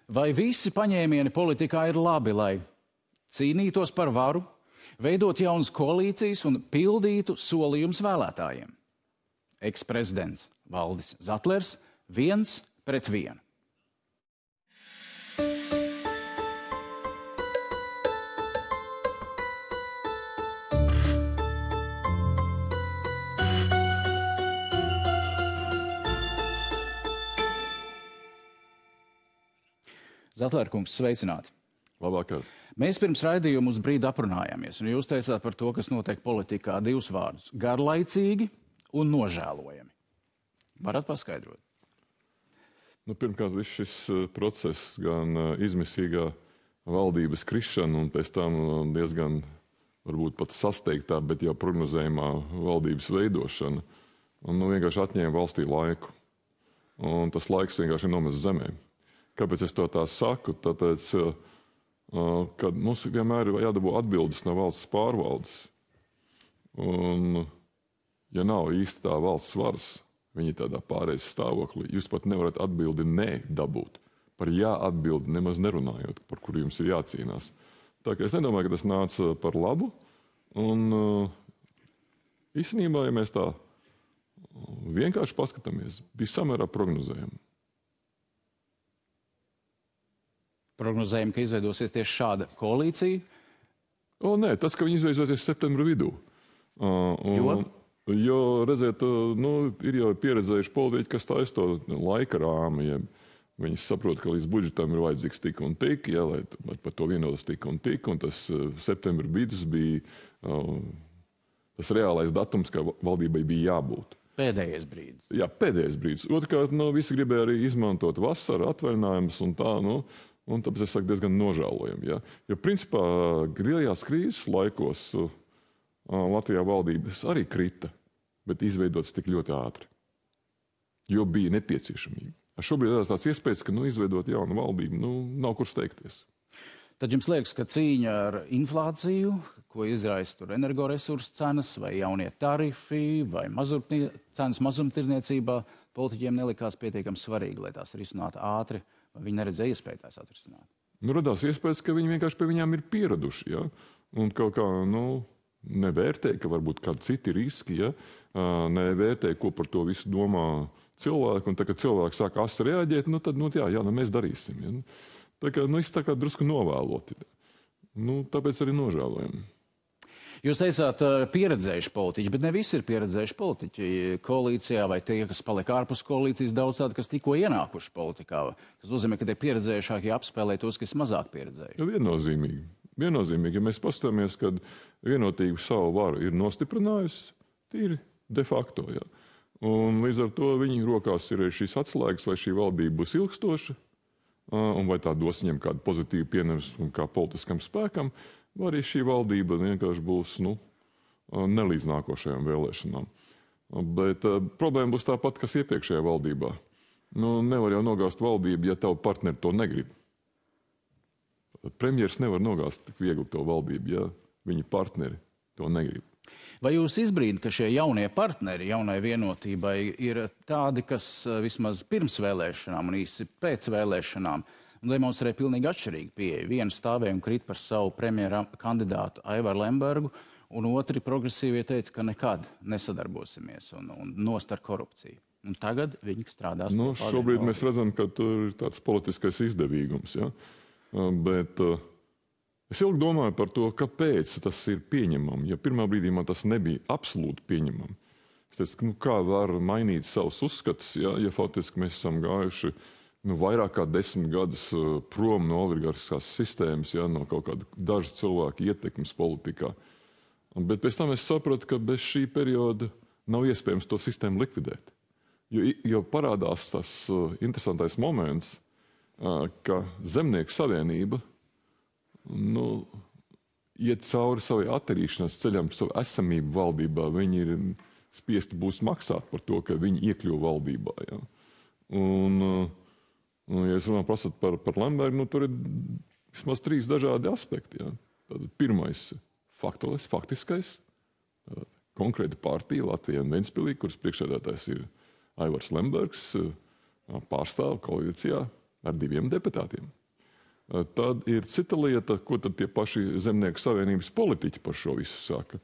Vai visi paņēmieni politikā ir labi, lai cīnītos par varu, veidot jaunas koalīcijas un pildītu solījumus vēlētājiem? Eksprezidents Valdis Zatlers 1-1. Zatlērkungs, sveicināti. Labvakar. Mēs pirms raidījuma uz brīdi aprunājāmies, un jūs teicāt par to, kas notiek politikā, divus vārdus - garlaicīgi un nožēlojami. Varat paskaidrot? Pirmkārt, viss šis process, gan izmisīgā valdības krišana un pēc tam diezgan varbūt pat sasteigtā, bet jau prognozējumā valdības veidošana, vienkārši atņēma valstī laiku. Un tas laiks vienkārši ir nomests zemē. Kāpēc es to tā saku? Tāpēc, ka mums vienmēr ir jādabū atbildes no valsts pārvaldes. Un, ja nav īsti tā valsts varas, viņi tādā pārējais stāvoklī, jūs pat nevarat atbildi nē dabūt. Par jā atbildi nemaz nerunājot, par kuru jums ir jācīnās. Tā kā es nedomāju, ka tas nāca par labu. Un īstenībā, ja mēs tā vienkārši paskatāmies, bija samērā prognozējami. Prognozējam, ka izveidosies tieši šāda koalīcija? Nē, tas, ka viņi izveidosies septembra vidū. Jo, redziet, ir jau pieredzējuši politiķi, kas taisa to laika rāmu. Ja viņi saprot, ka līdz budžetam ir vajadzīgs tik un tik, ja, lai par to vienotas tik un tik, un tas septembra vidus bija tas reālais datums, ka valdībai bija jābūt. Pēdējais brīdis. Jā, pēdējais brīdis. Otrkārt, visi gribēja arī izmantot vasaru, atvaļinājumus un tā, un tāpēc es saku diezgan nožēlojami. Ja? Jo principā lielajās krīzes laikos Latvijā valdības arī krita, bet izveidotas tik ļoti ātri. Jo bija nepieciešamība. Šobrīd ir tāds iespējas, ka izveidot jaunu valdību, nav kur steigties. Tad jums liekas, ka cīņa ar inflāciju, ko izraisa tur energoresursu cenas, vai jaunie tarifi, vai cenas mazumtirniecībā, politiķiem nelikās pietiekami svarīgi, lai tās risinātu ātri. Viņi neredzēja iespēju tās atrisināt. Radās iespējas, ka viņi vienkārši pie viņām ir pieraduši. Ja? Un kaut kā nevērtē, ka varbūt kādi citi riski, ja? Nevērtē, ko par to visu domā cilvēki. Un tā, kad cilvēki sāk asi reaģēt, tad mēs darīsim. Ja? Tā kā viss tā kā drusku novēloti. Tāpēc arī nožēlojam. Jūs teicāt, pieredzējuši politiķi, bet ne visi ir pieredzējuši politiķi koalīcijā, vai tie, kas palika ārpus koalīcijas, daudz tādi, kas tikko ienākuši politikā. Tas nozīmē, ka tie pieredzējušākie apspēlē tos, kas mazāk pieredzējuši. Viennozīmīgi. Ja mēs paskatāmies, kad vienotība savu varu ir nostiprinājusi, tīri de facto. Ja. Un līdz ar to viņi rokās ir šīs atslēgas, vai šī valdība būs ilgstoša, un vai tā dos viņam kādu pozitīvu pienesumu kā politiskam spēkam, vai arī šī valdība vienkārši būs nelīdz nākošajām vēlēšanām. Bet problēma būs tāpat, kas iepriekšējā valdībā. Nevar jau nogāzt valdību, ja tavu partneri to negrib. Premjers nevar nogāzt tik viegli to valdību, ja viņa partneri to negrib. Vai jūs izbrīdat, ka šie jaunie partneri jaunai vienotībai ir tādi, kas vismaz pirms vēlēšanām un īsi pēc vēlēšanām demonstrē pilnīgi atšķirīgu pieeju? Vienu stāvēja un krīt par savu premjera kandidātu Aivaru Lembergu, un otri progresīvie teica, ka nekad nesadarbosimies un nost ar korupciju. Un tagad viņi strādās. Šobrīd mēs redzam, ka tur ir tāds politiskais izdevīgums. Ja? Bet es ilgi domāju par to, kāpēc tas ir pieņemami. Ja pirmā brīdī man tas nebija absolūti pieņemami. Es teicu, kā var mainīt savus uzskatus, ja faktiski mēs esam gājuši vairāk kā 10 gadus prom no oligarhiskās sistēmas, no kaut kāda dažu cilvēku ietekmes politikā. Bet pēc tam es sapratu, ka bez šī perioda nav iespējams to sistēmu likvidēt. Jo parādās tas interesantais moments, ka Zemnieku savienība iet cauri savai attīrīšanās ceļam, savu esamību valdībā. Viņi ir spiesti būs maksāt par to, ka viņi iekļuva valdībā. Ja? Un ja jūs prasat par Lembergu, tur ir vismaz 3 dažādi aspekti. Ja? Pirmais - faktiskais, konkrēta partija Latvijā un Ventspilī, kuras priekšsēdētājs ir Aivars Lembergs, pārstāv koalīcijā ar 2 deputātiem. Tad ir cita lieta, ko tad tie paši Zemnieku savienības politiķi par šo visu saka.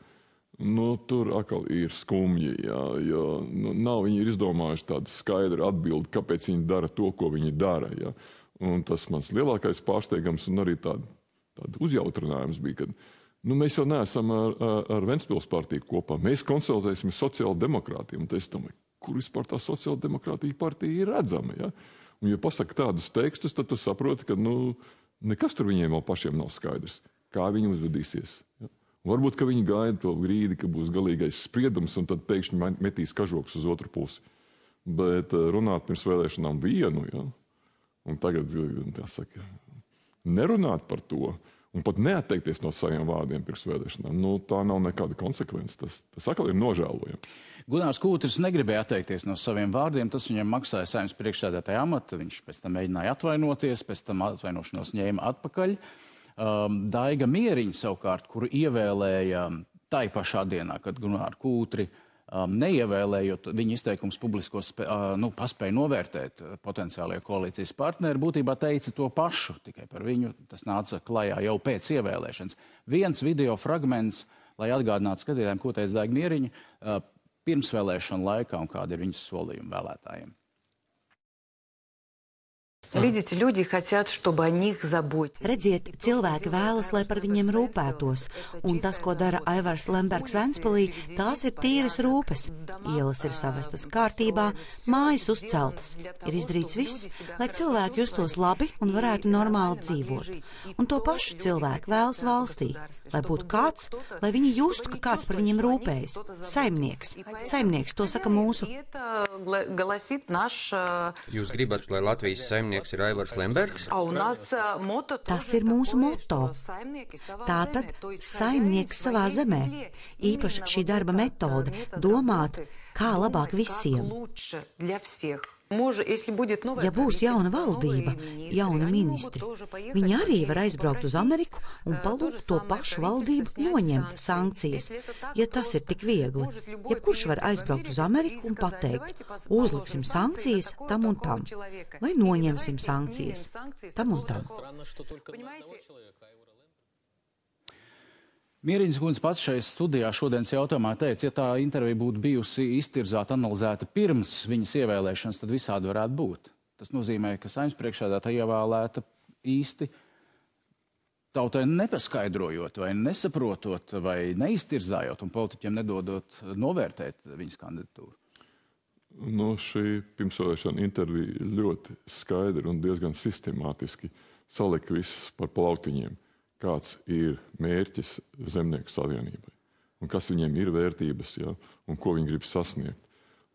Tur atkal ir skumji, jo nav viņi ir izdomājuši tādu skaidru atbildi, kāpēc viņi dara to, ko viņi dara. Ja. Un tas mans lielākais pārsteigums un arī tādu uzjautrinājums bija, ka mēs jau neesam ar Ventspils partiju kopā. Mēs konsultēsim sociāldemokrātiem. Un es domāju, kur vispār tā sociāldemokrātija partija ir redzama. Ja? Un, ja pasaka tādus tekstus, tad tu saproti, ka nekas tur viņiem vēl pašiem nav skaidrs, kā viņi uzvedīsies. Ja? Varbūt, ka viņi gaida to brīdi, ka būs galīgais spriedums, un tad pēkšņi metīs kažoks uz otru pusi. Bet runāt pirms vēlēšanām vienu, ja? Un tagad, jāsaka, nerunāt par to, un pat neatteikties no saviem vārdiem pirms vēlēšanām, tā nav nekāda konsekvence. Tas atkal ir nožēlojami. Gunārs Kūtris negribēja atteikties no saviem vārdiem, tas viņam maksāja Saeimas priekšsēdētāja amatu, viņš pēc tam mēģināja atvainoties, pēc tam atvainošanos ņēma atpakaļ. Daiga Mieriņa savukārt, kuru ievēlēja tai pašā dienā, kad Gunāru Kūtri neievēlējot, viņa izteikums publiskos paspēja novērtēt potenciālie koalīcijas partneri, būtībā teica to pašu, tikai par viņu tas nāca klajā jau pēc ievēlēšanas. Viens video fragments, lai atgādinātu skatītājiem, ko teica Daiga Mieriņa pirmsvēlēšanu laikā un kādi ir viņas solījumi vēlētājiem. Видите, люди хотят, чтобы о них заботились. Redziet, cilvēki vēlas, lai par viņiem rūpētos, un tas, ko dara Aivars Lembergs Ventspilī, tās ir tīras rūpes. Ielas ir savestas kārtībā, mājas uzceltas. Ir izdarīts viss, lai cilvēki justos labi un varētu normāli dzīvot. Un to pašu cilvēku vēlas valstī, lai būtu kāds, lai viņi justu, ka kāds par viņiem rūpējas. Saimnieks. Saimnieks, to saka mūsu. Jūs gribat, lai Latvijas saimnieks ir Aivars Lembergs? Tas ir mūsu moto. Tātad saimnieks savā zemē. Īpaši šī darba metode - domāt, kā labāk visiem. Ja būs jauna valdība, jauni ministri, viņi arī var aizbraukt uz Ameriku un palūgt to pašu valdību noņemt sankcijas, ja tas ir tik viegli. Jebkurš var aizbraukt uz Ameriku un pateikt, uzliksim sankcijas tam un tam, vai noņemsim sankcijas tam un tam. Mieriņas kundze pats šajā studijā šodienas jautājumā teica, ja tā intervija būtu bijusi iztirzāta, analizēta pirms viņas ievēlēšanas, tad visādi varētu būt. Tas nozīmē, ka Saeimas priekšsēdētāja ievēlēta īsti tautai nepaskaidrojot, vai nesaprotot, vai neiztirzājot un politiķiem nedodot novērtēt viņas kandidatūru. Šī pirmsvēlēšana intervija ļoti skaidri un diezgan sistemātiski salika visus par plautiņiem. Kāds ir mērķis Zemnieku savienībai un kas viņiem ir vērtības, ja, un ko viņi grib sasniegt.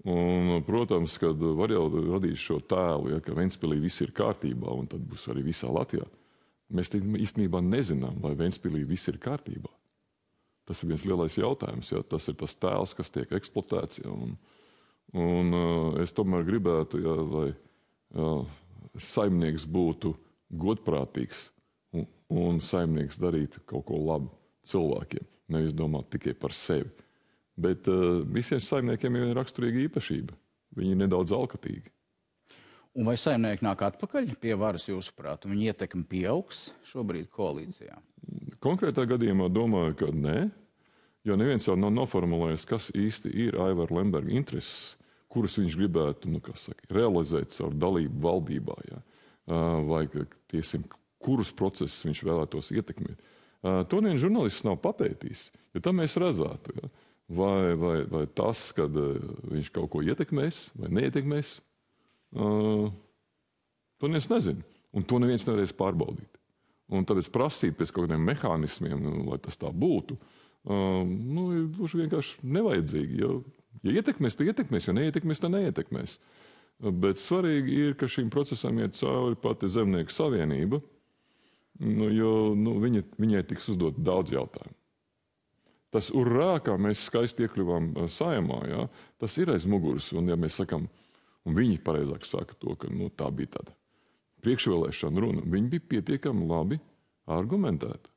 Un, protams, kad var jau radīt šo tēlu, ja, ka Ventspilī viss ir kārtībā un tad būs arī visā Latvijā. Mēs īstenībā nezinām, vai Ventspilī viss ir kārtībā. Tas ir viens lielais jautājums. Ja, tas ir tas tēls, kas tiek eksploatēts. Ja, un es tomēr gribētu, ja, lai saimnieks būtu godprātīgs un saimnieks darītu kaut ko labu cilvēkiem, nevis domāt tikai par sevi. Bet visiem saimniekiem ir raksturīga īpašība. Viņi ir nedaudz alkatīgi. Un vai saimnieki nāk atpakaļ pie varas, jūsuprāt, un viņa ietekme pieaugs šobrīd koalīcijā? Konkrētā gadījumā domāju, ka nē, jo neviens jau nav noformulējis, kas īsti ir Aivara Lemberga intereses, kuras viņš gribētu, realizēt caur dalību valdībā, ja? Vai tiesim, kurus procesus viņš vēlētos ietekmēt. To neviens žurnālists nav papētījis, jo tam mēs redzētu. Ja? Vai tas, kad viņš kaut ko ietekmēs vai neietekmēs, to neviens nezina. Un to neviens nevarēs pārbaudīt. Un tāpēc prasīt pēc kaut kādiem mehānismiem, lai tas tā būtu, ir gluži vienkārši nevajadzīgi. Ja ietekmēs, tad ietekmēs, ja neietekmēs, tad neietekmēs. Bet svarīgi ir, ka šīm procesam iet cauri pati Zemnieku savienība, jo viņai tiks uzdot daudz jautājumu. Tas urrā, kā mēs skaisti iekļuvām Saeimā, ja, tas ir aiz muguras. Un ja mēs sakam, un viņi pareizāk saka to, ka tā bija tāda priekšvēlēšana runa, viņi bija pietiekami labi argumentēti.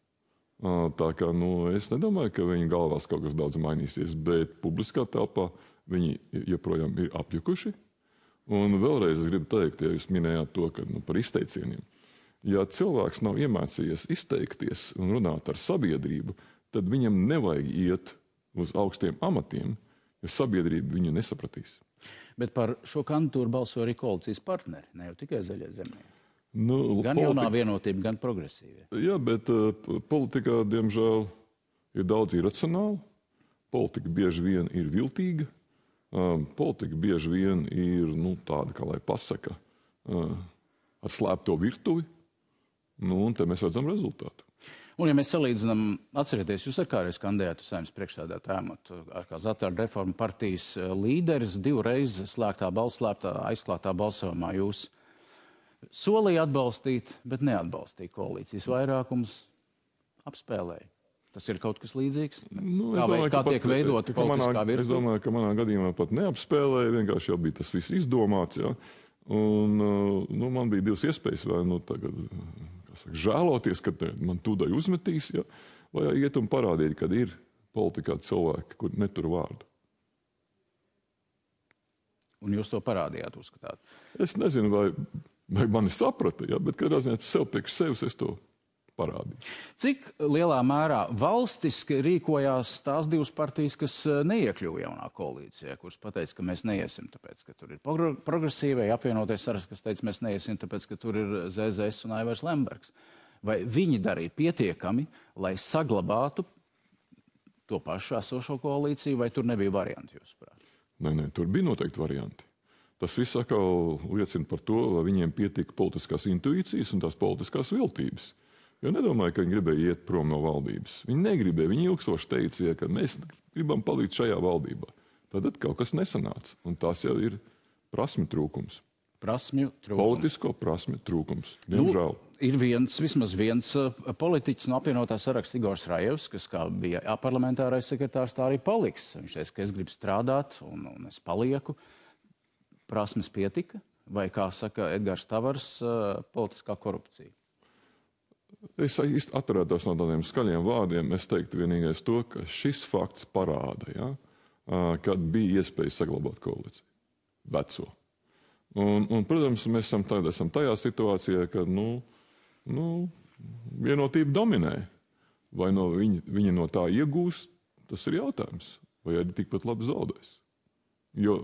Tā kā es nedomāju, ka viņu galvās kaut kas daudz mainīsies, bet publiskā telpā viņi joprojām ir apjukuši. Un vēlreiz es gribu teikt, ja jūs minējāt to, ka par izteicieniem. Ja cilvēks nav iemācījies izteikties un runāt ar sabiedrību, tad viņam nevajag iet uz augstiem amatiem, jo sabiedrība viņu nesapratīs. Bet par šo kandidatūru balso arī koalīcijas partneri, ne jau tikai Zaļie zemnieki. Gan jaunā vienotība, gan progresīvie. Jā, bet politikā, diemžēl, ir daudz iracionāli. Politika bieži vien ir viltīga. Politika bieži vien ir tāda, kā lai pasaka, ar slēpto virtuvi. Un te mēs redzam rezultātu. Un, ja mēs salīdzinām, atcerieties, jūs ar kādreiz kandidētu Saeimas priekšsēdētāja amatu, kā Zatāra reforma partijas līderis, 2 reizes aizklātā balsojumā jūs solīja atbalstīt, bet neatbalstīja koalīcijas vairākums, apspēlēja. Tas ir kaut kas līdzīgs? Kā tiek veidota politiskā virtuve? Es domāju, ka manā gadījumā pat neapspēlēja, vienkārši jau bija tas viss izdomāts. Ja? Un man bija 2 iespējas, vai tagad žēloties, ka man tūdai uzmetīs, ja? Vai iet un parādīt, kad ir politikā cilvēki, kur netur vārdu. Un jūs to parādījāt, uzskatāt? Es nezinu, vai mani saprata, ja? Bet kādā ziņā sev priekš sevis es to parādīju. Cik lielā mērā valstiski rīkojās tās 2 partijas, kas neiekļuva jaunā koalīcijā, kuras pateica, ka mēs neiesim, tāpēc, ka tur ir progresīvai, apvienoties saraksts, kas teica, mēs neiesim, tāpēc, ka tur ir ZZS un Aivars Lembergs. Vai viņi darīja pietiekami, lai saglabātu to pašu esošo koalīciju, vai tur nebija varianti, jūsuprāt? Nē, tur bija noteikti varianti. Tas viss atkal liecina par to, vai viņiem pietika politiskās intuīcijas un tās politiskās viltības. Jo nedomāju, ka viņi gribēja iet prom no valdības. Viņi negribēja, viņi ilgstoši teica, ka mēs gribam palikt šajā valdībā. Tad kaut kas nesanāca, un tas jau ir prasmju trūkums. Politisko prasmju trūkums, diemžēl. Ir vismaz viens politiķis no apvienotā saraksta Igors Rajevs, kas kā bija parlamentārais sekretārs, tā arī paliks. Viņš teica, ka es gribu strādāt un es palieku. Prasmes pietika, vai, kā saka Edgars Tavars, politiskā korupcija? Es atturētos no tādiem skaļiem vārdiem. Es teiktu vienīgais to, ka šis fakts parāda, kad bija iespēja saglabāt koalīciju. Veco. Un, protams, mēs esam tajā situācijā, kad vienotība dominē. Vai viņa no tā iegūst, tas ir jautājums. Vai arī tikpat labi zaudēs. Jo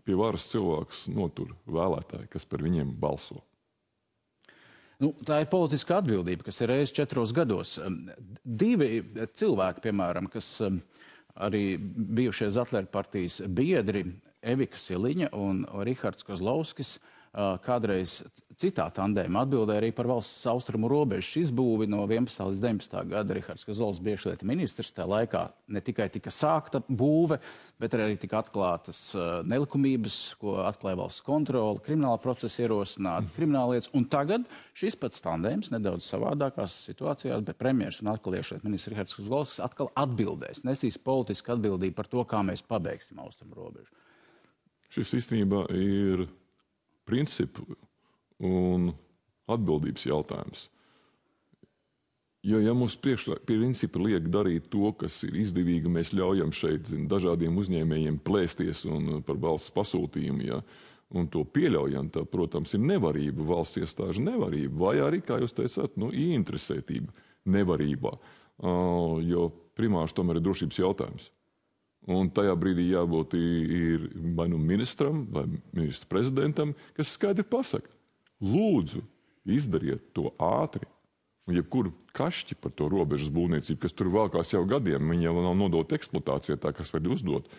pie varas cilvēks notur vēlētāji, kas par viņiem balso. Tā ir politiska atbildība, kas ir reizes 4 gados. 2 cilvēki, piemēram, kas arī bijušie Zatlera partijas biedri, Evika Siliņa un Rihards Kozlovskis, kādreiz citā tandēmā atbildēja arī par valsts austrumu robežu izbūvi no 11. līdz 19. gada. Rihards Kozlovskis bija iekšlietu ministrs, tajā laikā ne tikai tika sākta būve, bet arī tika atklātas nelikumības, ko atklāja valsts kontrole, krimināla procesa ierosināta, krimināllietas. Un tagad šis pats tandēms nedaudz savādākās situācijās, bet premjers un atkal iekšlietu ministrs Rihards Kozlovskis atkal atbildēs, nesīs politisku atbildību par to, kā mēs pabeigsim austrumu robežu. Šis īstenībā ir principu un atbildības jautājums. Jo, ja mums principi liek darīt to, kas ir izdevīgi, mēs ļaujam šeit dažādiem uzņēmējiem plēsties un par valsts pasūtījumu, un to pieļaujam, tā, protams, ir nevarība, valsts iestāžu nevarība, vai arī, kā jūs teicāt, ieinteresētība nevarībā, jo primārs tomēr ir drošības jautājums. Un tajā brīdī jābūt ir vai ministram, vai ministra prezidentam, kas skaidri pasaka, lūdzu, izdariet to ātri. Un jebkuru kašķi par to robežas būvniecību, kas tur valkās jau gadiem, viņi jau nav nodota eksploatācijā, tā kas var uzdot,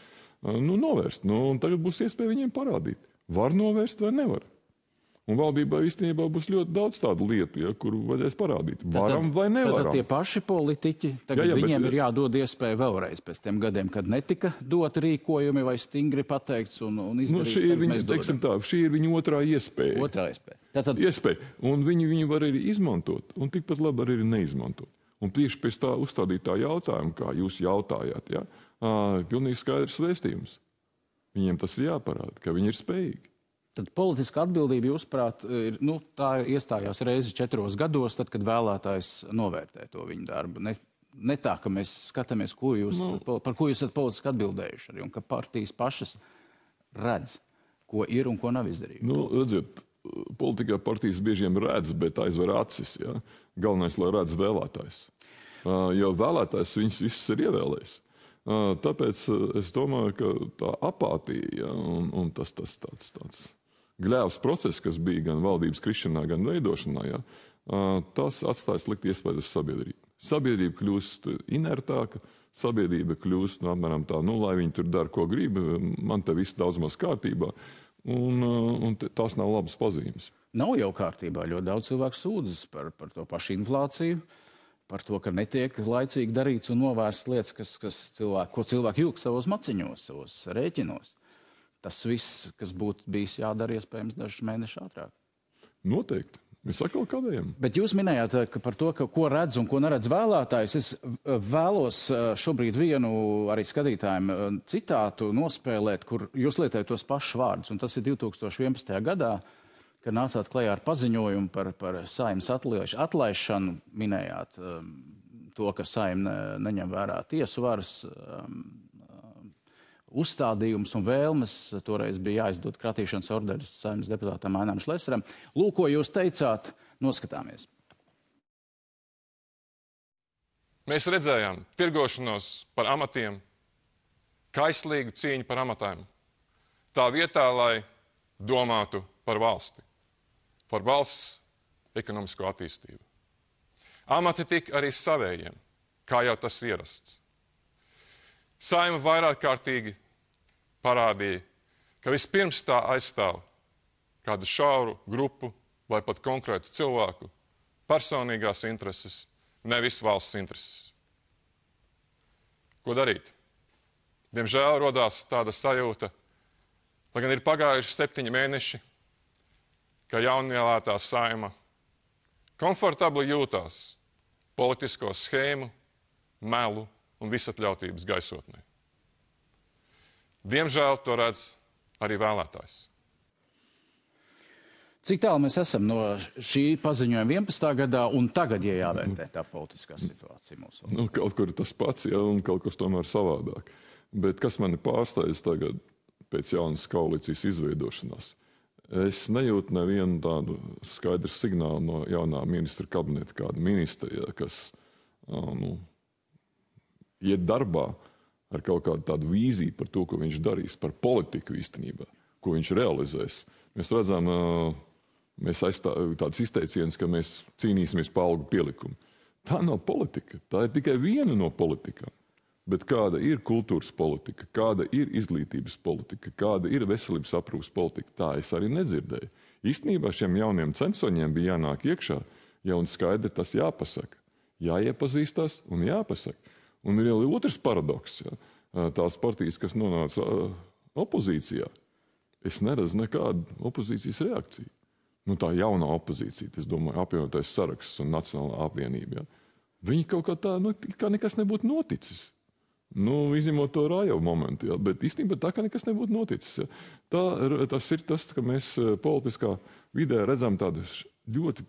novērst. Un tagad būs iespēja viņiem parādīt. Var novērst vai nevar. Un valdībā īstenībā būs ļoti daudz tādu lietu, kuru vajadzēs parādīt. Varam vai nevaram. Tad tie paši politiķi, tagad viņiem ir jādod iespēja vēlreiz pēc tiem gadiem, kad netika dot rīkojumi vai stingri pateikts un izdarīts. Šī ir viņa otrā iespēja. Iespēja. Un viņi var arī izmantot, un tikpat labi arī neizmantot. Un tieši pēc tā uzstādītā jautājuma, kā jūs jautājāt, pilnīgi skaidrs vēstījums. Viņiem tas ir jāparāda, ka viņi ir spējīgi. Tad politiska atbildība, jūsuprāt, tā iestājās reizi 4 gados, tad, kad vēlētājs novērtē to viņu darbu. Ne tā, ka mēs skatāmies, par ko jūs esat politiski atbildējuši arī, un ka partijas pašas redz, ko ir un ko nav izdarījuši. Redziet, politikā partijas biežiem redz, bet aizver acis. Ja? Galvenais, lai redz vēlētājs. Jo vēlētājs viņus visus ir ievēlējis. Tāpēc es domāju, ka tā apātija, ja, un tas tāds gļēvs process, kas bija gan valdības krišanā, gan veidošanā, ja, tas atstāja slikti iespēju uz sabiedrību. Sabiedrība kļūst inertāka, sabiedrība kļūst apmēram tā, lai viņi tur dara, ko grib, man te viss daudz maz kārtībā, un tās nav labas pazīmes. Nav jau kārtībā. Ļoti daudz cilvēku sūdzas par to pašu inflāciju, par to, ka netiek laicīgi darīts un novērsts lietas, ko cilvēki jūg savos maciņos, savos rēķinos. Tas viss, kas būtu bijis jādara iespējams dažus mēnešus ātrāk. Noteikti. Mēs atkal kādējam. Bet jūs minējāt par to, ko redz un ko neredz vēlētājs. Es vēlos šobrīd vienu arī skatītājiem citātu nospēlēt, kur jūs lietojat tos pašus vārdus. Un tas ir 2011. gadā, kad nācāt klajā ar paziņojumu par Saeimas atlaišanu. Minējāt to, ka Saeima neņem vērā tiesu varas uzstādījums un vēlmes. Toreiz bija jāizdod kratīšanas orderis Saeimas deputātam Ainam Šlesaram. Lūk, ko jūs teicāt, noskatāmies. Mēs redzējām tirgošanos par amatiem, kaislīgu cīņu par amatiem. Tā vietā, lai domātu par valsti, par valsts ekonomisko attīstību. Amati tika arī savējiem, kā jau tas ierasts. Saeima vairāk kārtīgi parādīja, ka vispirms tā aizstāv kādu šauru grupu vai pat konkrētu cilvēku personīgās intereses, nevis valsts intereses. Ko darīt? Diemžēl rodās tāda sajūta, lai gan ir pagājuši 7 mēneši, ka jaunielētā Saeima komfortabli jūtās politisko schēmu, melu un visatļautības gaisotnē. Diemžēl to redz arī vēlētājs. Cik tālu mēs esam no šī paziņojuma 11. gadā un tagad, ja jāvērtē tā politiskā situācija mūsu valstī? Kaut kur tas pats, ja, un kaut kas tomēr savādāk. Bet kas mani pārsteidz tagad pēc jaunas koalīcijas izveidošanās? Es nejūtu nevienu tādu skaidru signālu no jaunā ministra kabineta, kāda ministra, ja, kas iet darbā ar kaut kādu tādu vīziju par to, ko viņš darīs, par politiku īstenībā, ko viņš realizēs. Mēs redzam, tāds izteiciens, ka mēs cīnīsimies par algu pielikumu. Tā nav politika, tā ir tikai viena no politikām. Bet kāda ir kultūras politika, kāda ir izglītības politika, kāda ir veselības aprūpes politika, tā es arī nedzirdēju. Īstenībā šiem jauniem censoņiem bija jānāk iekšā, ja un skaidri tas jāpasaka. Jāiepazīstās un jāpasaka. Un ir jau otrs paradoks. Ja. Tās partijas, kas nonāca opozīcijā, es neredzu nekādu opozīcijas reakciju. Tā jaunā opozīcija, es domāju, apvienotais saraksts un Nacionālā apvienība. Ja. Viņi kaut kā tā, kā nekas nebūtu noticis. Izņemot to Rājau momentu, ja. Bet īstenībā tā, ka nekas nebūtu noticis. Ja. Tas ir tas, ka mēs politiskā vidē redzam tādu ļoti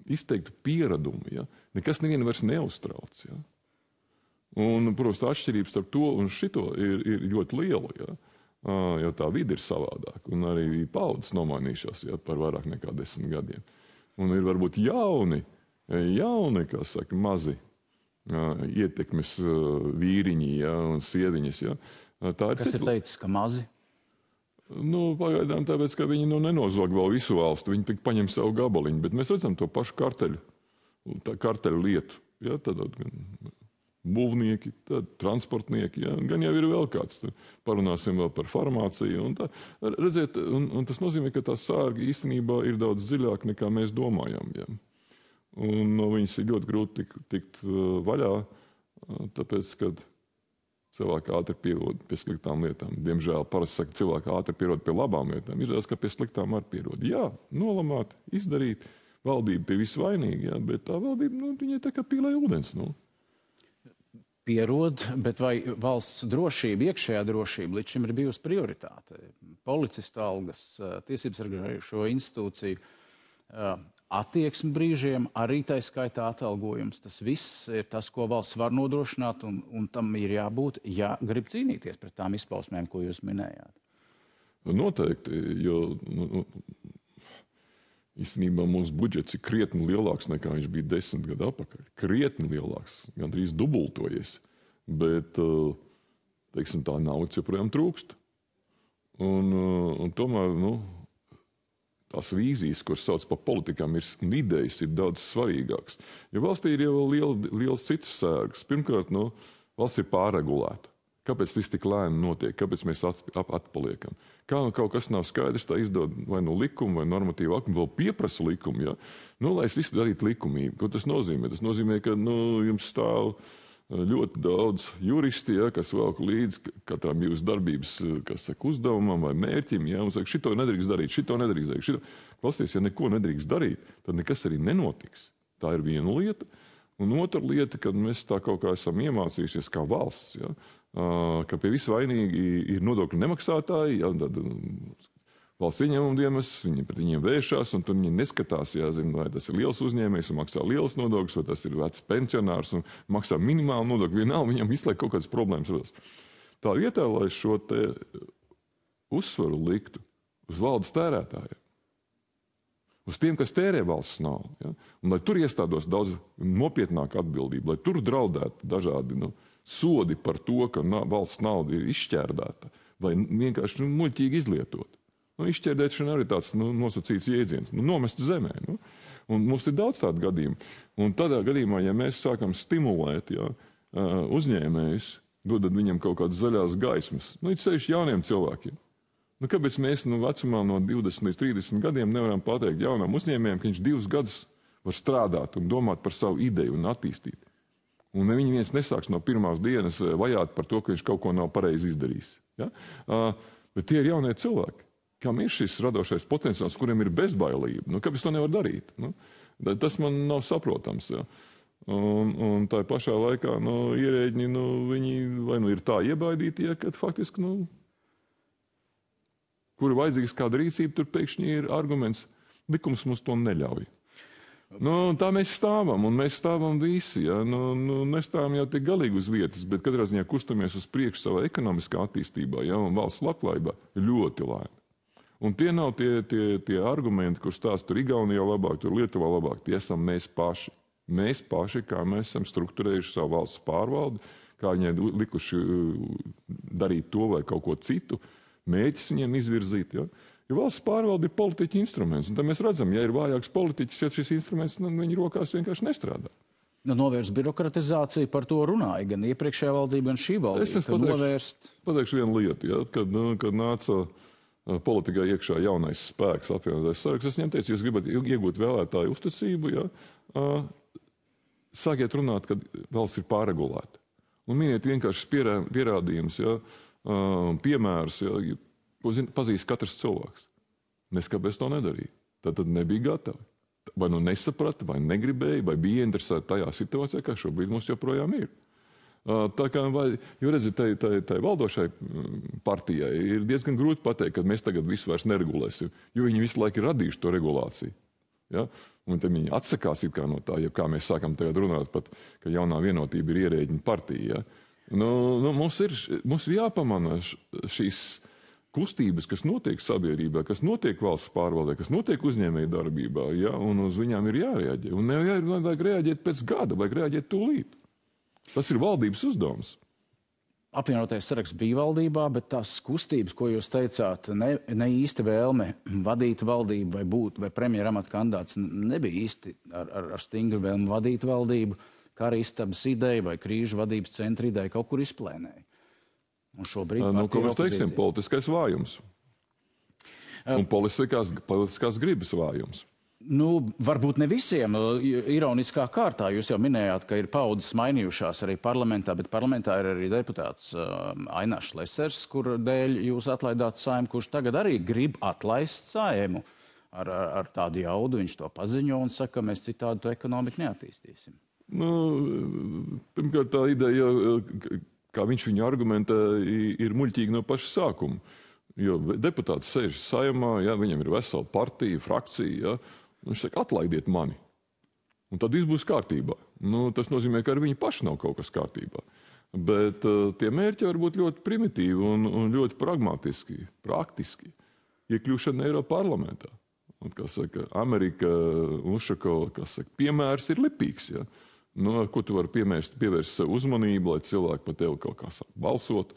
izteiktu pieradumu. Ja. Nekas nevienu vairs neuztrauc. Ja. Un, protams, tā atšķirības starp to un šito ir ļoti liela, ja? Jo tā vide ir savādāka. Un arī paudzes nomainījušās, ja, par vairāk nekā 10 gadiem. Un ir varbūt jauni, kā saka, mazi ietekmes vīriņi, ja, un sieviņas. Ja? Kas ir teicis, ka mazi? Pagaidām tāpēc, ka viņi nenozog vēl visu valstu, viņi tik paņem savu gabaliņu, bet mēs redzam to pašu karteļu lietu. Ja? Tad būvnieki, tad transportnieki, ja? Gan jau ir vēl kāds. Parunāsim vēl par farmāciju. Redziet, un tas nozīmē, ka tā sārga īstenībā ir daudz dziļāka nekā mēs domājam. Ja? Un no viņas ir ļoti grūti tikt vaļā, tāpēc, kad cilvēki ātri pierod pie sliktām lietām. Diemžēl parasti saka, cilvēki ātri pierod pie labām lietām. Ir tas, ka pie sliktām arī pierod. Jā, nolamāt, izdarīt, valdība pie visu vainīga, ja? Bet tā valdība, viņai tā kā pīlē ūdens. Pierod, bet vai valsts drošība, iekšējā drošība līdz šim ir bijusi prioritāte? Policistu algas, tiesības sargājošo institūciju attieksmi brīžiem, arī tā skaitā atalgojums. Tas viss ir tas, ko valsts var nodrošināt, un tam ir jābūt, ja grib cīnīties pret tām izpausmēm, ko jūs minējāt. Noteikti, jo Īstenībā mūsu budžets ir krietni lielāks nekā viņš bija 10 gadu atpakaļ. Krietni lielāks, gandrīz dubultojies. Bet, teiksim, tā naudas joprojām trūkst. Un tomēr, tās vīzijas, kuras sauc par politikām, un idejas ir daudz svarīgākas. Jo valstī ir jau liels citas sērgas. Pirmkārt, valsts ir pārregulēta. Kāpēc viss tik lēni notiek? Kāpēc mēs atpaliekam? Kā kaut kas nav skaidrs, tā izdod vai likuma, vai normatīva aktu, vēl pieprasa likumu, ja? Lai es visu darītu likumīgi. Ko tas nozīmē? Tas nozīmē, ka jums stāv ļoti daudz juristi, ja, kas velk līdz katram jūsu darbības, uzdevumam vai mērķim, ja, un saka, šito nedrīkst darīt, šito nedrīkst darīt. Klausies, ja neko nedrīkst darīt, tad nekas arī nenotiks. Tā ir viena lieta. Un otra lieta, kad mēs tā kaut kā esam iemācījušies kā valsts, ja, ka pie visu vainīgi ir nodokļu nemaksātāji, ja, tad valsts ieņēmuma dienas, viņi pret viņiem vēršās, un tur viņi neskatās, jāzina, vai tas ir liels uzņēmējs un maksā liels nodokļus, vai tas ir vecs pensionārs un maksā minimālu nodokļu, vienalga viņam visu laiku kaut kādas problēmas rodas. Tā vietā, lai šo te uzsvaru liktu uz valdes tērētājiem, uz tiem, kas tērē valsts naudu, ja, un lai tur iestādos daudz nopietnāka atbildība, lai tur draudētu dažādi sodi par to, ka valsts nauda ir izšķērdēta vai vienkārši muļķīgi izlietot. Izšķērdēšana arī tāds nosacīts jēdziens, nomest zemē. Un mums ir daudz tādu gadījumu. Un tādā gadījumā, ja mēs sākam stimulēt uzņēmējus, dodot viņam kaut kādas zaļās gaismas, it sevišķi jauniem cilvēkiem. Kāpēc mēs vecumā no 20 līdz 30 gadiem nevaram pateikt jaunam uzņēmējiem, ka viņš 2 gadus var strādāt un domāt par savu ideju un attīstīt? Un viņi viens nesāks no pirmās dienas vajāt par to, ka viņš kaut ko nav pareizi izdarījis. Ja? Bet tie ir jaunie cilvēki, kam ir šis radošais potenciāls, kuriem ir bezbailība. Kāpēc to nevar darīt? Tas man nav saprotams. Ja? Un tā pašā laikā ierēģi, viņi vai ir tā iebaidīti, ja, kad faktiski, kur ir vajadzīgs kāda rīcība, tur pēkšņi ir arguments, likums mums to neļauj. Tā mēs stāvam, un mēs stāvam visi. Ja? Nestāvam jau tik galīgi uz vietas, bet katrā ziņā kustamies uz priekšu savā ekonomiskā attīstībā, ja? Un valsts labklājībā ļoti lēni. Un tie nav tie argumenti, kur stāsta tur Igaunijā labāk, tur Lietuvā labāk. Tie esam mēs paši. Mēs paši, kā mēs esam strukturējuši savu valsts pārvaldi, kā viņai likuši darīt to vai kaut ko citu, mēģis viņiem izvirzīt. Ja? Jo valsts pārvalde ir politiķa instruments. Un tad mēs redzam, ja ir vājāks politiķis, ja šis instruments viņa rokās vienkārši nestrādā. Novērst birokratizāciju, par to runāja gan iepriekšējā valdība, gan šī valdība. Es pateikšu vienu lietu. Ja? Kad nāca politikā iekšā jaunais spēks, apvienotais saraksts, es viņiem teicu, jūs gribat iegūt vēlētāju uzticību, ja? Sākiet runāt, kad valsts ir pārregulēta. Un miniet vienkārši pierādījums, ja? Piemērs, ja? Ko pazīst katrs cilvēks. Kāpēc to nedarīja. Tad nebija gatavi. Vai nesaprata, vai negribēja, vai bija interesēti tajā situācijā, kā šobrīd mums joprojām ir. Jo redziet, tai valdošai partijai ir diezgan grūti pateikt, ka mēs tagad visu vairs neregulēsim, jo viņi visu laiku ir radījuši to regulāciju. Ja? Un tad viņi atsakās it kā no tā, ja kā mēs sākam tagad runāt pat, ka jaunā vienotība ir ierēģiņa partija. Ja? Mums ir jāpamana šīs kustības, kas notiek sabiedrībā, kas notiek valsts pārvaldē, kas notiek uzņēmēju darbībā, ja? Un uz viņām ir jārēģē. Un nevajag reaģēt pēc gada, vajag reaģēt tūlīt. Tas ir valdības uzdevums. Apvienotais saraksts bija valdībā, bet tās kustības, ko jūs teicāt, ne īsti vēlme vadīt valdību vai būt vai premjera amata kandidāts, nebija īsti ar stingru vēlmi vadīt valdību, kā arī istabas ideja vai krīžu vadības centra ideja kaut kur izplēnēja. Un šobrīd ko mēs teiksim, politiskais vājums. Un politiskās gribas vājums. Varbūt ne visiem. Ironiskā kārtā jūs jau minējāt, ka ir paudzes mainījušās arī parlamentā, bet parlamentā ir arī deputāts Ainārs Šlesers, kur dēļ jūs atlaidāt Saeimu, kurš tagad arī grib atlaist Saeimu. Ar tādu jaudu viņš to paziņo un saka, ka mēs citādi to ekonomiku neattīstīsim. Pirmkārt, tā ideja, kā viņš viņu argumentē, ir muļķīga no paša sākuma. Jo deputāts sēž Saeimā, ja, viņam ir vesela partija, frakcija, ja, un viņš saka, atlaidiet mani. Un tad viss būs kārtībā. Tas nozīmē, ka ar viņu paši nav kaut kas kārtībā. Bet tie mērķi var būt ļoti primitīvi un ļoti pragmatiski, praktiski. Iekļūšana Eiroparlamentā. Un, kā saka, Amerika, Ušakova, kā saka, piemērs ir lipīgs. Ja? Nu, ar ko tu vari pievērst sev uzmanību, lai cilvēki par tevi kaut kā sāk balsot,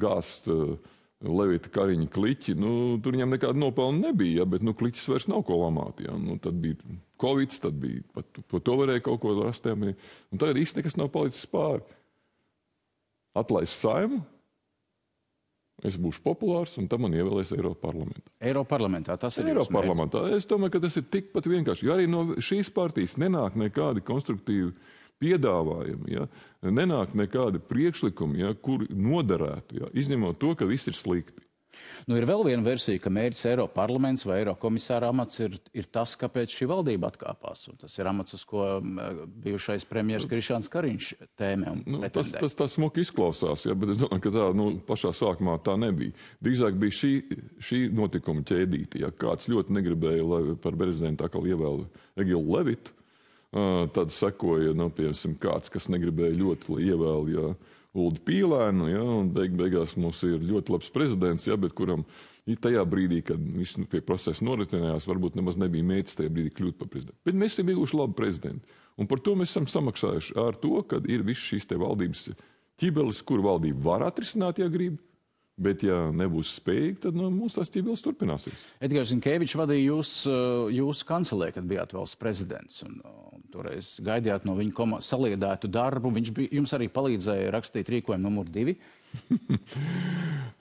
gāzt Levita Kariņa kliķi. Tur viņam nekāda nopelna nebija, ja? Bet kliķis vairs nav ko lamāt. Ja? Tad bija Covid, tad bija par to varēja kaut ko rast. Un tagad īsti nekas nav palicis pāri. Atlaist Saimu, es būšu populārs, un tam man ievēlēs Eiroparlamentā. Eiroparlamentā tas ir Eiroparlamentā. Es domāju, ka tas ir tikpat vienkārši. Jo arī no šīs partijas nenāk nekādi konstruktīvi piedāvājumi, ja? Nenāk nekādi priekšlikumi, ja? Kur noderētu, ja? Izņemot to, ka viss ir slikti. Ir vēl viena versija, ka mērķis Eiroparlaments vai Eirokomisāra amats ir tas, kāpēc šī valdība atkāpās. Un tas ir amats, uz ko bijušais premjers Krišjāns Kariņš tēmē un pretendē. Tas smuki izklausās, ja, bet es domāju, ka tā pašā sākumā tā nebija. Drīzāk bija šī notikuma ķēdīte. Ja kāds ļoti negribēja, lai par prezidentu atkal ievēl Egilu Levitu, tad sekoja, piemēram, kāds, kas negribēja ļoti, lai ievēl, ja, Uldi Pīlēnu, ja, un beigās mums ir ļoti labs prezidents, ja, bet kuram tajā brīdī, kad viss pie procesa noritinājās, varbūt nemaz nebija mērķis tajā brīdī kļūt par prezidentu. Bet mēs esam ieguvuši labu prezidentu. Un par to mēs esam samaksājuši ar to, ka ir viss šīs te valdības ķibelis, kur valdība var atrisināt, ja grib, bet ja nebūs spējīgi, tad mums tās ķibelis turpināsies. Edgars Zinkevičs vadīja jūsu kancelē, kad bijāt valsts prezidents. Un toreiz gaidījāt no viņa saliedētu darbu. Viņš jums arī palīdzēja rakstīt rīkojumu numur 2.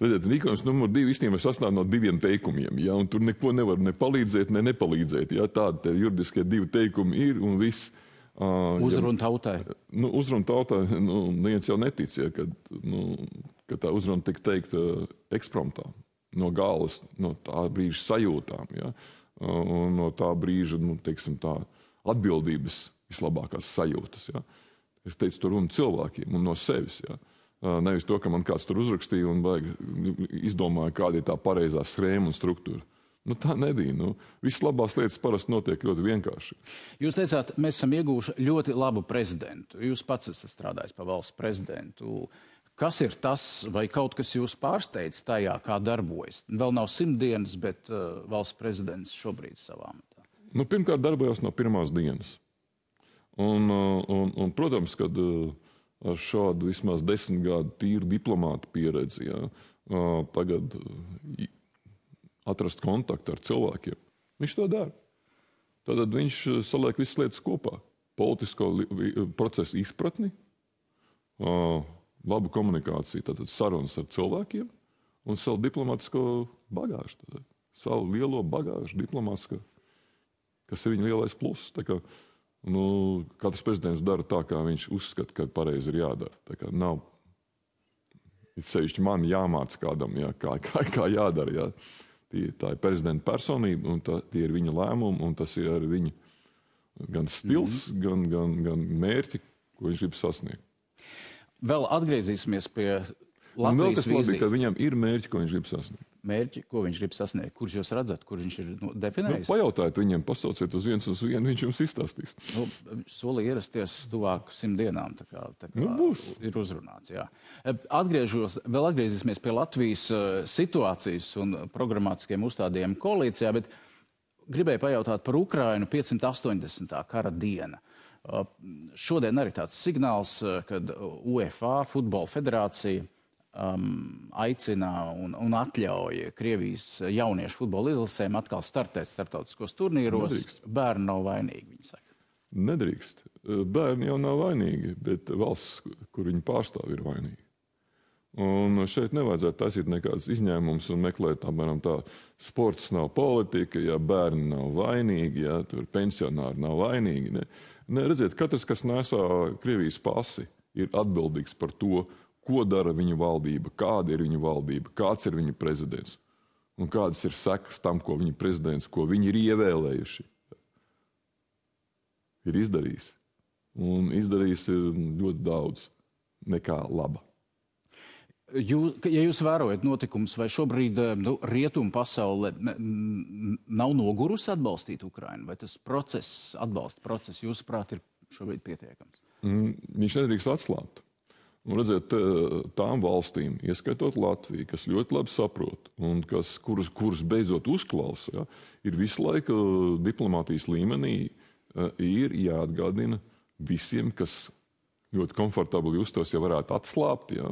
Rīkojums numur 2 īstenībā sastāv no 2 teikumiem. Ja? Un tur neko nevar ne palīdzēt, ne nepalīdzēt. Ja? Tādi juridiskie 2 teikumi ir un viss. Uzruna tautai. Uzruna tautai, neviens jau netic, ja, ka tā uzruna tika teikta ekspromptā, no galvas, no tā brīža sajūtām, ja, un no tā brīža, teiksim tā, atbildības vislabākās sajūtas. Ja. Es teicu, tur runa cilvēkiem un no sevis. Ja. Nevis to, ka man kāds tur uzrakstīja un izdomāja, kāda ir tā pareizā schēma un struktūra. Tā nebija. Viss labās lietas parasti notiek ļoti vienkārši. Jūs teicāt, mēs esam ieguvuši ļoti labu prezidentu. Jūs pats esat strādājis par valsts prezidentu. Kas ir tas, vai kaut kas jūs pārsteidz tajā, kā darbojas? Vēl nav 100 dienas, bet valsts prezidents šobrīd savā amatā. Pirmkārt, darbojās no pirmās dienas. Un protams, kad ar šādu vismaz 10 gadu tīru diplomātu pieredzi, ja, tagad atrast kontaktu ar cilvēkiem. Viņš to dara. Tad viņš saliek visas lietas kopā. Politisko procesu izpratni, labu komunikāciju, tātad sarunas ar cilvēkiem un savu diplomātisko bagāžu. Tātad, savu lielo bagāžu diplomātisko, kas ir viņa lielais pluss. Tā kā, katrs prezidents dara tā, kā viņš uzskata, ka pareizi ir jādara. Tā kā nav sevišķi man jāmāca kādam, ja, kā jādara. Ja. Tā ir prezidenta personība, un tie ir viņa lēmumi, un tas ir arī viņa gan stils, gan mērķi, ko viņš grib sasniegt. Vēl atgriezīsimies pie Latvijas vīzijas. Vēl kas labi, ka viņam ir mērķi, ko viņš grib sasniegt. Mērķi, ko viņš grib sasniegt? Kurš jūs redzat, kur viņš ir definējis? Pajautājiet viņam, pasauciet uz viens, viņš jums izstāstīs. Solīja ierasties tuvāk 100 dienām, tā kā ir uzrunāts. Jā. Vēl atgriezīsimies pie Latvijas situācijas un programmatiskiem uzstādījumiem koalīcijā, bet gribēju pajautāt par Ukrainu 580. kara diena. Šodien arī tāds signāls, kad UEFA, Futbola federācija, aicina un atļauj Krievijas jauniešu futbola izlasēm atkal startēt starptautiskos turnīros. Nedrīkst. Bērni nav vainīgi, viņi saka. Nedrīkst. Bērni jau nav vainīgi, bet valsts, kur viņi pārstāv, ir vainīgi. Un šeit nevajadzētu taisīt nekādas izņēmumus un meklēt, apmēram tā, sports nav politika, ja bērni nav vainīgi, ja tur pensionāri nav vainīgi. Ne, redziet, katrs, kas nesā Krievijas pasi, ir atbildīgs par to, ko dara viņa valdība, kāda ir viņa valdība, kāds ir viņa prezidents un kādas ir sekas tam, ko viņa prezidents, ko viņi ir ievēlējuši, ir izdarījis. Un izdarījis ir ļoti daudz nekā laba. Ja jūs vērojat notikumus, vai šobrīd rietumu pasaule nav nogurusi atbalstīt Ukrainu, vai tas atbalsta process, jūsuprāt, ir šobrīd pietiekams? Viņš nedrīkst atslābt. Un redzēt, tām valstīm, ieskaitot Latviju, kas ļoti labi saprot un kuras beidzot uzklausa, ja, ir visu laiku diplomātijas līmenī ir jāatgādina visiem, kas ļoti komfortabli justos, ja varētu atslābt, ja,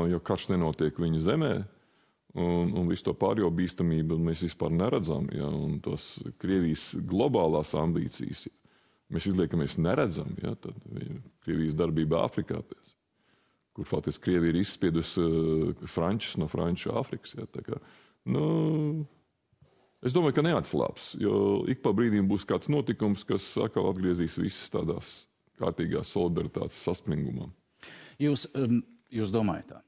jo karš nenotiek viņu zemē, un visu to pārējo bīstamību mēs vispār neredzam, ja, un tos Krievijas globālās ambīcijas, ja, mēs izliekamies neredzam, ja, tad Krievijas darbība Āfrikā, kur faktiski Krievija ir izspiedusi frančus no Franču Āfrikas. Ja, tā kā, es domāju, ka neatslāps, jo ik pa brīdīm būs kāds notikums, kas atkal atgriezīs visas tādās kārtīgās solidaritātes saspringumā. Jūs domājat tā?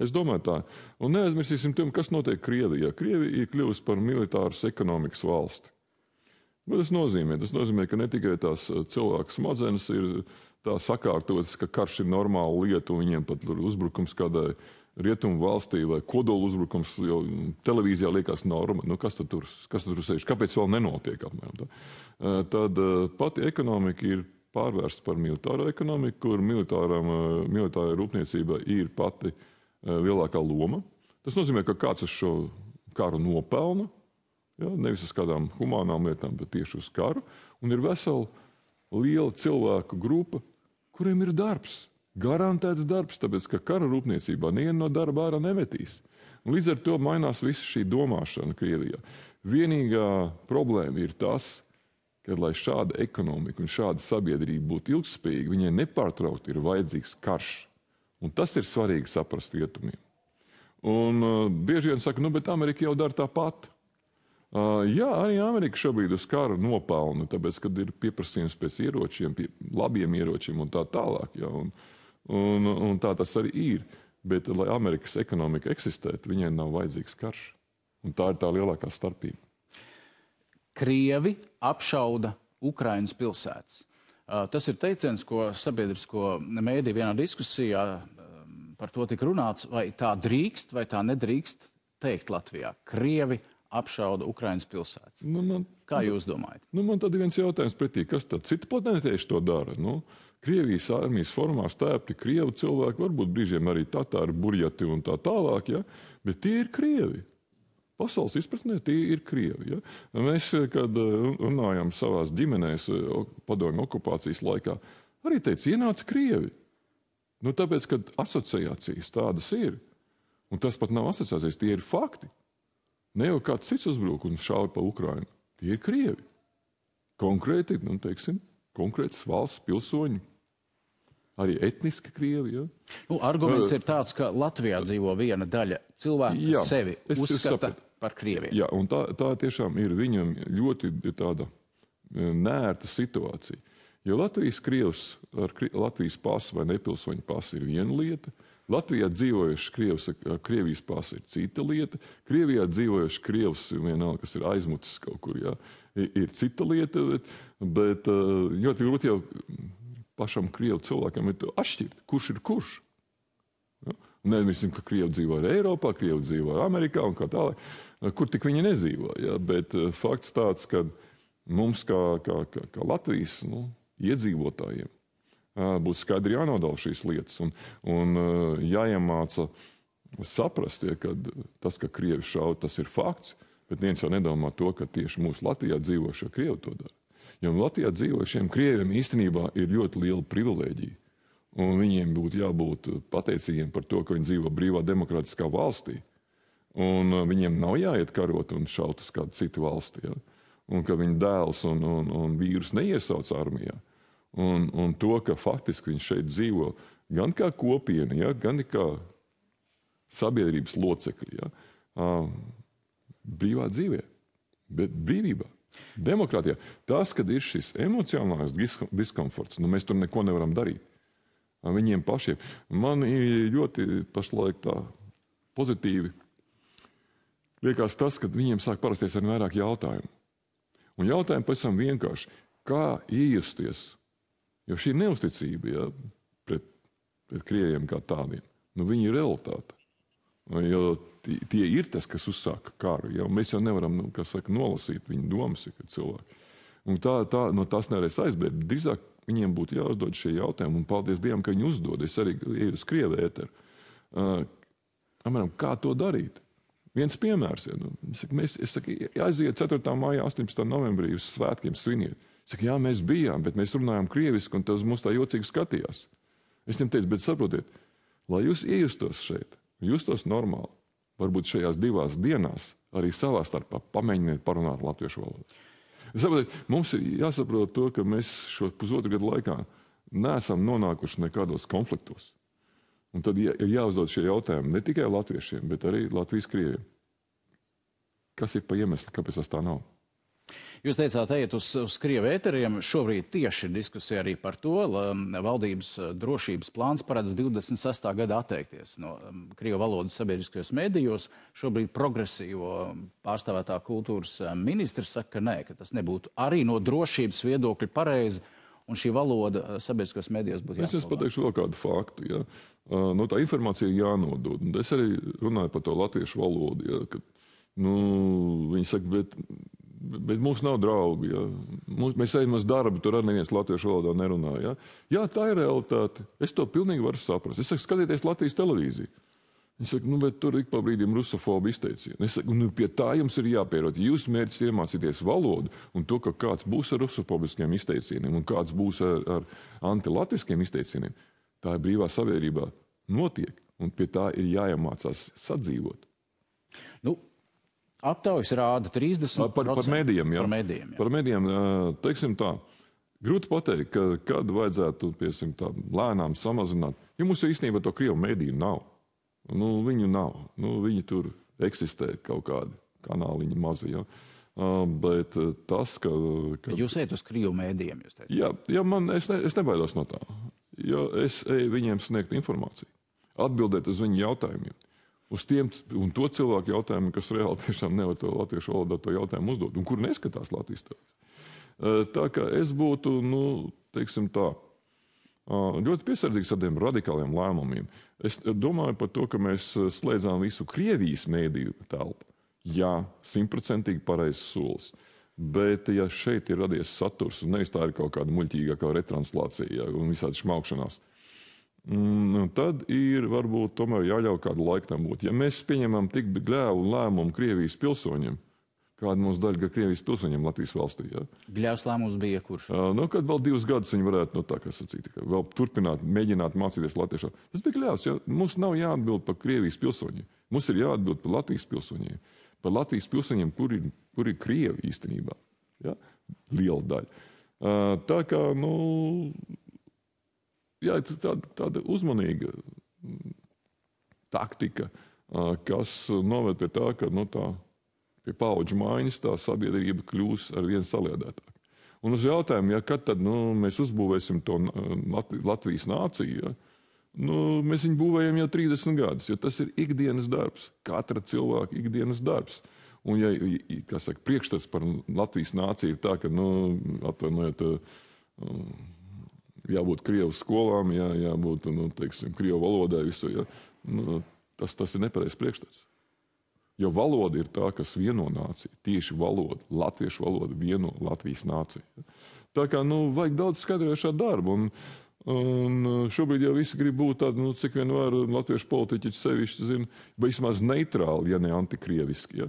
Es domāju tā. Un neaizmirsīsim, kas notiek Krievijā. Krievija ir kļuvusi par militāras ekonomikas valsti. Bet tas nozīmē, ka ne tikai tās cilvēku smadzenes ir tā sakārtotas, ka karš ir normāla lieta, un viņiem pat uzbrukums kādai rietumu valstī vai kodolu uzbrukums, jo televīzijā liekas norma. Kas tad tur sēž? Kāpēc vēl nenotiek apmēram? Tad pati ekonomika ir pārvērsta par militāro ekonomiku, kur militārai rūpniecībai ir pati lielākā loma. Tas nozīmē, ka kāds uz šo karu nopelna, ja, nevis uz kādām humānām lietām, bet tieši uz karu, un ir vesela liela cilvēku grupa, kuriem ir darbs, garantēts darbs, tāpēc, ka kara rūpniecībā nevienu no darba ārā nemetīs. Un līdz ar to mainās visa šī domāšana Krievijā. Vienīgā problēma ir tas, ka, lai šāda ekonomika un šāda sabiedrība būtu ilgspējīga, viņai nepārtraukti ir vajadzīgs karš. Un tas ir svarīgi saprast rietumiem. Un bieži vien saka, bet Amerika jau dara tāpat. Jā, arī Amerika šobrīd uz karu nopelna, tāpēc, kad ir pieprasījums pēc ieročiem, labiem ieročiem un tā tālāk. Ja, un tā tas arī ir. Bet, lai Amerikas ekonomika eksistētu, viņai nav vajadzīgs karš. Un tā ir tā lielākā starpība. Krievi apšauda Ukrainas pilsētas. Tas ir teiciens, ko sabiedrisko mēdī vienā diskusijā par to tika runāts, vai tā drīkst, vai tā nedrīkst teikt Latvijā. Krievi apšauda Ukrainas pilsētas. Kā jūs domājat? Man tad ir viens jautājums pretī, kas tad citi planētieši to dara? Krievijas armijas formā stēpti Krievu cilvēki, varbūt brīžiem arī tatāri, burjati un tā tālāk, ja? Bet tie ir Krievi. Pasaules izpratnē tie ir Krievi. Ja? Mēs, kad runājam savās ģimenēs padomju okupācijas laikā, arī teica, ienāca Krievi. Tāpēc, kad asociācijas tādas ir, un tas pat nav asociācijas, tie ir fakti. Ne jau kāds cits uzbruk un šauj pa Ukrainu. Tie ir Krievi. Konkrēti, konkrētas valsts pilsoņi. Arī etniski Krievi. Ja? Arguments ir tāds, ka Latvijā dzīvo viena daļa cilvēku, kas sevi uzskata par Krieviju. Jā, un tā tiešām ir viņam ļoti tāda nērta situācija. Jo Latvijas krievs ar Latvijas pasu vai nepilsoņu pasu ir viena lieta, Latvijā dzīvojuši krievs ar Krievijas pasu ir cita lieta, Krievijā dzīvojuši krievs, vienalga, kas ir aizmucis kaut kur, jā, ir cita lieta, bet ļoti grūti jau pašam krievu cilvēkam ir atšķirt, kurš ir kurš. Ja? Nemirsim, ka krievi dzīvo arī Eiropā, krievi dzīvo arī Amerikā un kā tālāk, kur tik viņi nedzīvo. Ja? Bet fakts tāds, ka mums kā Latvijas iedzīvotājiem būs skaidri jānodala šīs lietas un jāiemāca saprast, ja, ka tas, ka krievi šauj, tas ir fakts, bet viens jau nedomā to, ka tieši mūsu Latvijā dzīvošie krievi to dara. Jo Latvijā dzīvošiem krieviem īstenībā ir ļoti liela privilēģija, un viņiem būtu jābūt pateicīgiem par to, ka viņi dzīvo brīvā demokrātiskā valstī, un viņiem nav jāiet karot un šaut uz kādu citu valsti, ja? Un ka viņa dēls un vīrus neiesauc armijā. Un to, ka faktiski viņš šeit dzīvo gan kā kopiena, ja, gan kā sabiedrības locekļi, ja, brīvā dzīvē, bet brīvībā, demokrātijā. Tas, kad ir šis emocionālais diskomforts, mēs tur neko nevaram darīt. Viņiem pašiem. Man ir ļoti pašlaik tā pozitīvi liekas tas, ka viņiem sāk parasties ar vairāk jautājumu. Un jautājumi pēc tam vienkārši, kā iejusties, jo šī neusticība, ja, pret krieviem kā tādiem, viņi ir realitāte. Jo tie ir tas, kas uzsāka karu. Ja, mēs jau nevaram, nolasīt viņu domas, kad cilvēki. Un tā no tās nevarēs aizbēgt. Drīzāk viņiem būtu jāuzdod šie jautājumi, un paldies Dievam, ka viņi uzdod. Es arī eju uz Krievu ēteru. Kā to darīt? Viens piemērs. Ja, es saku, aiziet 4. maijā, 18. novembrī uz svētkiem sviniet. Es saku, jā, mēs bijām, bet mēs runājām krieviski, un tas mums tā jocīgi skatījās. Es viņam teicu, bet saprotiet, lai jūs iejustos šeit, justos normāli, varbūt šajās 2 dienās arī savā starpā pamēģiniet parunāt latviešu valodu. Saprotiet, mums ir jāsaprot to, ka mēs šo pusotru gadu laikā neesam nonākuši nekādos konfliktos. Un tad ir jāuzdod šie jautājumi ne tikai latviešiem, bet arī Latvijas krieviem. Kas ir pa iemeslu, kāpēc tas tā nav? Jūs teicāt, ejiet uz Krievu ēteriem. Šobrīd tieši ir diskusija arī par to, valdības drošības plāns paredz 26. gada atteikties no Krievu valodas sabiedriskajos medijos. Šobrīd progresīvo pārstāvētā kultūras ministrs saka, ka nē, ka tas nebūtu arī no drošības viedokļa pareizi, un šī valoda sabiedriskajos medijos būtu jāsaglabā. Es pateikšu vēl kādu faktu. Ja. No tā informācija ir jānodod. Un es arī runāju par to latviešu valodu. Ja, kad, viņi saka, bet mums nav draugi. Ja. Mēs ejam uz darbu, tur arī neviens latviešu valodā nerunā. Ja. Jā, tā ir realitāte. Es to pilnīgi varu saprast. Es saku, skatieties Latvijas televīziju. Es saku, bet tur ik pa brīdim rusofobu izteicieni. Es saku, pie tā jums ir jāpierod. Jūs mērķis iemācīties valodu un to, ka kāds būs ar rusofobiskiem izteicieniem un kāds būs ar antilatviskiem izteicieniem. Tā ir brīvā sabiedrībā notiek, un pie tā ir jāiemācās sadzīvot. Aptaujas rāda 30%. Par medijiem, jā. Par medijiem, teiksim tā, grūti pateikt, kad vajadzētu, piesim tā, lēnām samazināt. Jo mums īstenībā to Krievu mediju nav. Viņu nav. Viņi tur eksistē kaut kādi kanāliņi mazi, jā. Bet tas, ka... Jūs ejat uz Krievu mēdījiem, jūs teicat? Jā, es nebaidos no tā. Jo es eju viņiem sniegt informāciju. Atbildēt uz viņu jautājumiem. Uz tiem un to cilvēku jautājumiem, kas reāli tiešām nevar to latviešu valodā to jautājumu uzdot, un kur neskatās Latvijas televīzija. Tā kā es būtu, teiksim tā, ļoti piesardzīgs ar tiem radikāliem lēmumiem. Es domāju par to, ka mēs slēdzām visu Krievijas mēdīju telpu. Jā, 100% pareizs solis. Bet, ja šeit ir radies saturs, un nevis tā ir kaut kāda muļķīgākā retranslācija un visādi šmaukšanās, tad ir varbūt tomēr jāļauj kādu laiku tam būt. Ja mēs pieņemam tik gļēvu lēmumu Krievijas pilsoņiem, kāda mums daļa Krievijas pilsoņiem Latvijas valstī. Ja? Gļēvs lēmums bija kurš? Kad vēl 2 gadus viņi varētu, tā kā sacīt, vēl turpināt, mēģināt mācīties latviešā. Tas bija gļēvs, ja? Mums nav jāatbild par Krievijas pilsoņiem. Mums ir jāatbild par Latvijas pilsoņiem. Par Latvijas pilsoņiem, kur ir Krievi īstenībā. Ja? Liela daļa. Tā kā, tāda uzmanīga taktika, kas noved pie tā, ka pie paudžu maiņas tā sabiedrība kļūs ar vien saliedētāk. Un uz jautājumu, kad tad mēs uzbūvēsim to Latvijas nāciju, ja? Mēs viņu būvējam jau 30 gadus, jo tas ir ikdienas darbs, katra cilvēka ikdienas darbs. Un, priekšstats par Latvijas nāciju ir tā, ka, atvainojiet, jābūt Krievu skolām, jābūt, Krievu valodai visu, ja? Tas ir nepareizs priekšstats. Jo valoda ir tā, kas vieno nāciju, tieši valoda, latviešu valoda vieno Latvijas nāciju. Tā kā, vajag daudz skaidrojošā darba, un šobrīd jau visi grib būt tādi, cik vien var latviešu politiķi sevišķi zina, vismaz neitrāli, ja ne antikrieviski. Ja?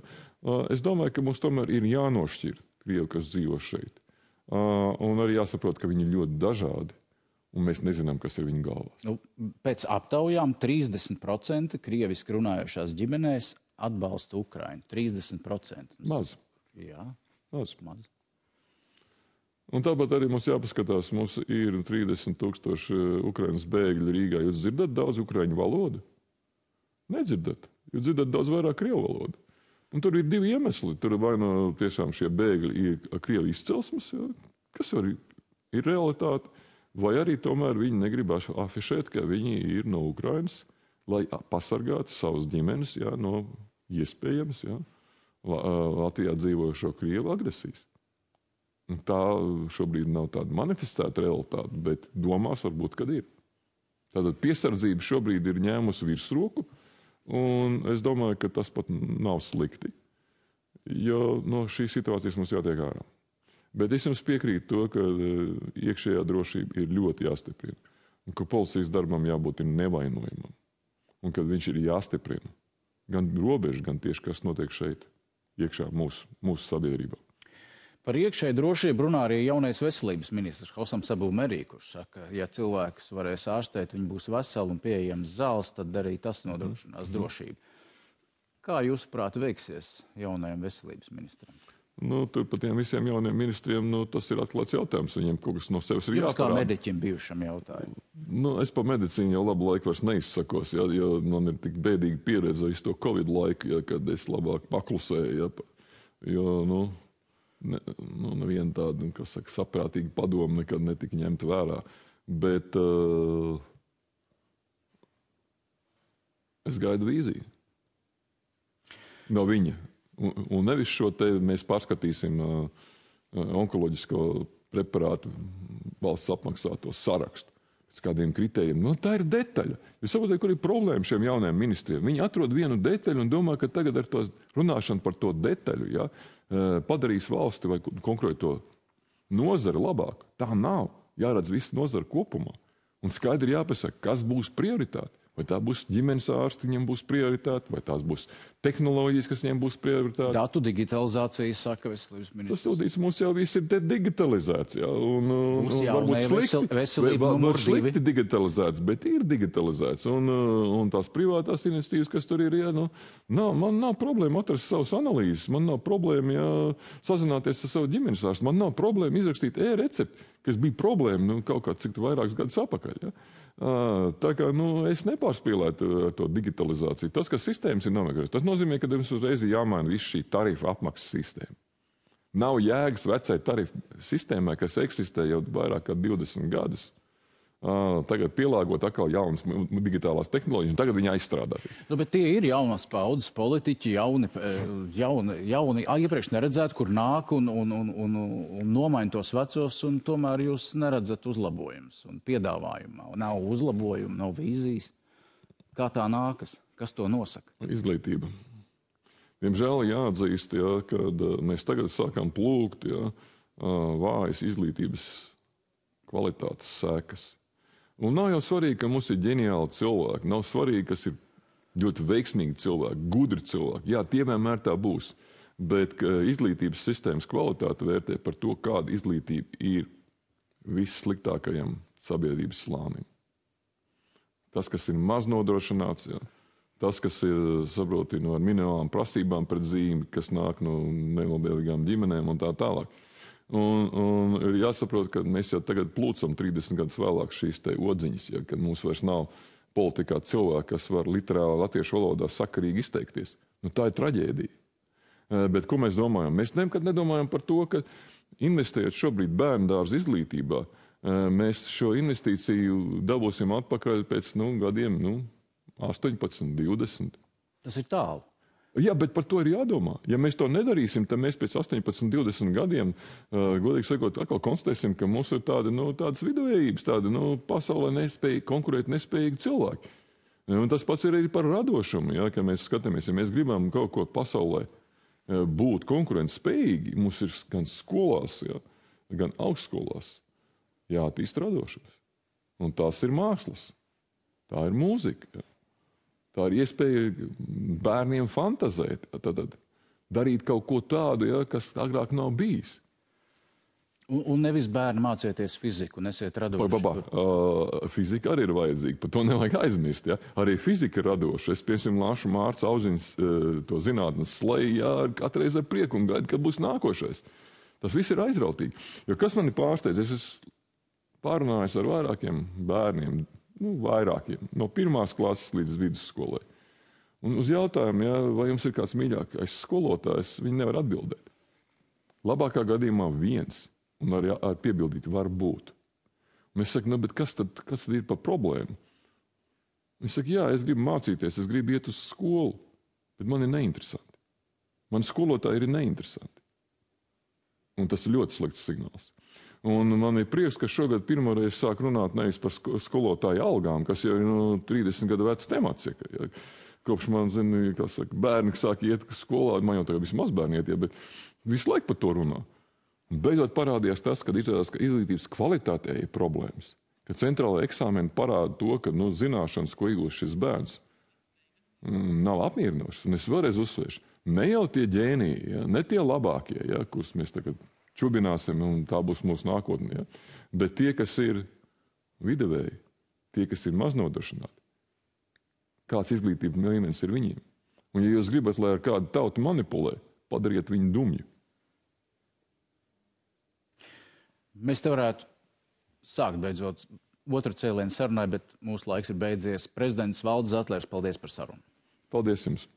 Es domāju, ka mums tomēr ir jānošķir Krievi, kas dzīvo šeit. Un arī jāsaprot, ka viņi ir ļoti dažādi, un mēs nezinām, kas ir viņu galvās. Pēc aptaujām 30% krieviski runājošās ģimenēs atbalsta Ukrainu. 30%. Maz. Jā, maz. Un tāpat arī mums jāpaskatās, mums ir 30,000 Ukrainas bēgļi Rīgā. Jūs dzirdat daudz ukraiņu valodu? Nedzirdat. Jūs dzirdat daudz vairāk krievu valodu. Un tur ir 2 iemesli. Tur vai tiešām šie bēgļi ir krievu izcelsmes, kas arī ir realitāte, vai arī tomēr viņi negrib afišēt, ka viņi ir no Ukrainas, lai pasargātu savas ģimenes no iespējams Latvijā dzīvojošo krievu agresijas. Tā šobrīd nav tāda manifestēta realitāte, bet domās varbūt, kad ir. Tātad piesardzība šobrīd ir ņēmusi virsroku, un es domāju, ka tas pat nav slikti, jo no šīs situācijas mums jātiek ārā. Bet es jums piekrītu to, ka iekšējā drošība ir ļoti jāstiprina. Un ka policijas darbam jābūt nevainojamam. Un kad viņš ir jāstiprina. Gan robeža, gan tieši kas notiek šeit, iekšā mūsu sabiedrībā. Par iekšēju drošību runā arī jaunais veselības ministrs Hosams Abu Merī, kurš saka, ja cilvēkus varēs ārstēt, viņi būs veseli un pieejams zāles, tad arī tas nodrošinās drošību. Kā jūsuprāt veiksies jaunajam veselības ministram? Tur par tiem visiem jauniem ministriem tas ir atklāts jautājums. Viņiem kaut kas no sevis ir jāparāda. Jūs kā mediķim bijušam jautājumu? Es par medicīnu jau labu laiku vairs neizsakos, jo man ir tik bēdīga pieredze visu to Covid laiku, kad es labāk paklusēju. Jo, neviena tāda, kas saka, saprātīga padoma nekad netika ņemta vērā. Bet es gaidu vīziju no viņa. Un nevis šo te mēs pārskatīsim onkoloģisko preparātu valsts apmaksāto sarakstu pēc kādiem kritērijiem. Tā ir detaļa. Jūs saprotat, kur ir problēma šiem jaunajiem ministriem? Viņi atrod vienu detaļu un domā, ka tagad ar to runāšanu par to detaļu padarīs valsti vai konkrēto nozari labāk. Tā nav. Jāredz visu nozari kopumā. Un skaidri jāpasaka, kas būs prioritāte. Vai tā būs ģimenes ārsti, viņiem būs prioritāte, vai tās būs tehnoloģijas, kas viņiem būs prioritāte. Datu digitalizācija, saka veselības ministrs. Sasūdīts, mums jau viss ir digitalizēts. Varbūt slikti digitalizēts, bet ir digitalizēts. Un tās privātās iniciatīvas, kas tur ir, man nav problēma atrast savus analīzes, man nav problēma sazināties ar savu ģimenes ārstu, man nav problēma izrakstīt e-recepti, kas bija problēma kaut kā cik vairākus gadus apakaļ. Tā kā es nepārspīlētu to digitalizāciju. Tas, ka sistēmas ir nomeklētas, tas nozīmē, ka mums uzreiz ir jāmaina viss šī tarifa apmaksas sistēma. Nav jēgas vecai tarifu sistēmai, kas eksistē jau vairāk kā 20 gadus. Tagad pielāgot atkal jaunas digitālās tehnoloģijas, un tagad viņi aizstrādāsies. Bet tie ir jaunas paudzes politiķi, jauni iepriekš neredzēt, kur nāk un nomaina tos vecos, un tomēr jūs neredzat uzlabojumus un piedāvājumā. Nav uzlabojumu, nav vīzijas. Kā tā nākas? Kas to nosaka? Izglītība. Diemžēl jāatzīst, kad mēs tagad sākam plūgt vājas izglītības kvalitātes sekas. Un nav jau svarīgi, ka mums ir ģeniāli cilvēki. Nav svarīgi, kas ir ļoti veiksmīgi cilvēki, gudri cilvēki. Jā, tie vienmēr tā būs. Bet izglītības sistēmas kvalitāte vērtē par to, kāda izglītība ir vissliktākajam sabiedrības slānim. Tas, kas ir maz nodrošināts, tas, kas ir, saproti, ar minimālām prasībām pret zīmi, kas nāk no nelabvēlīgām ģimenēm un tā tālāk. Un ir jāsaprot, ka mēs jau tagad plūcam 30 gadus vēlāk šīs te odziņas, kad mums vairs nav politikā cilvēki, kas var literāli latviešu valodā sakarīgi izteikties. Tā ir traģēdija. Bet ko mēs domājam? Mēs nekad nedomājam par to, ka investējot šobrīd bērndārza izglītībā, mēs šo investīciju dabūsim atpakaļ pēc gadiem 18, 20. Tas ir tālu. Jā, bet par to ir jādomā. Ja mēs to nedarīsim, tad mēs pēc 18, 20 gadiem, godīgi sakot, atkal konstatēsim, ka mums ir tādas viduvējības, pasaulē konkurēt nespējīgi cilvēki. Un tas pats ir arī par radošumu, ka mēs skatāmies, ja mēs gribam kaut ko pasaulē būt konkurentspējīgi, mums ir gan skolās, gan augstskolās jāattīst radošums. Un tās ir mākslas, tā ir mūzika. Tā ir iespēja bērniem fantazēt, darīt kaut ko tādu, kas agrāk nav bijis. Un nevis bērni mācieties fiziku, nesiet radoši. Fizika arī ir vajadzīga, par to nevajag aizmirst. Arī fizika ir radoša. Es, piemēram, lāšu Mārca Auziņas to zinātnes sleju, katreiz ar prieku un gaidu, kad būs nākošais. Tas viss ir aizrautīgi. Jo kas mani pārsteidz, es esmu pārunājis ar vairākiem bērniem, vairākiem, no 1. klases līdz vidusskolai. Un uz jautājumu, vai jums ir kāds mīļākais skolotājs, viņi nevar atbildēt. Labākā gadījumā viens, un ar piebildīt var būt. Un es saku, bet kas tad ir par problēmu? Viņš saka, jā, es gribu mācīties, es gribu iet uz skolu, bet man ir neinteresanti. Man skolotāji ir neinteresanti. Un tas ir ļoti slikts signāls. Un man ir prieks, ka šogad pirmoreiz sāk runāt nevis par skolotāju algām, kas jau ir 30 gadu vecs temats. Kopš man, bērni sāk iet skolā, man jau tagad vismaz bērni iet, bet visu laiku par to runā. Un beidzot parādījās tas, ka izrādās, ka izglītības kvalitātē ir problēmas. Ka centrālajā eksāmeni parāda to, ka zināšanas, ko iegūst šis bērns, nav apmierinošas. Un es vēlreiz uzsvēršu, ne jau tie ģēniji, ja, ne tie labākie, ja, kurus mēs tagad čubināsim, un tā būs mūsu nākotne, ja, bet tie, kas ir viduvēji, tie, kas ir maznodrošināti. Kāds izglītības līmenis ir viņiem. Un ja jūs gribat, lai ar kādu tautu manipulē, padariet viņu dumju. Mēs te varētu sākt beidzot otru cēlienu sarunai, bet mūsu laiks ir beidzies. Prezidents Valdis Zatlers, paldies par sarunu. Paldies jums!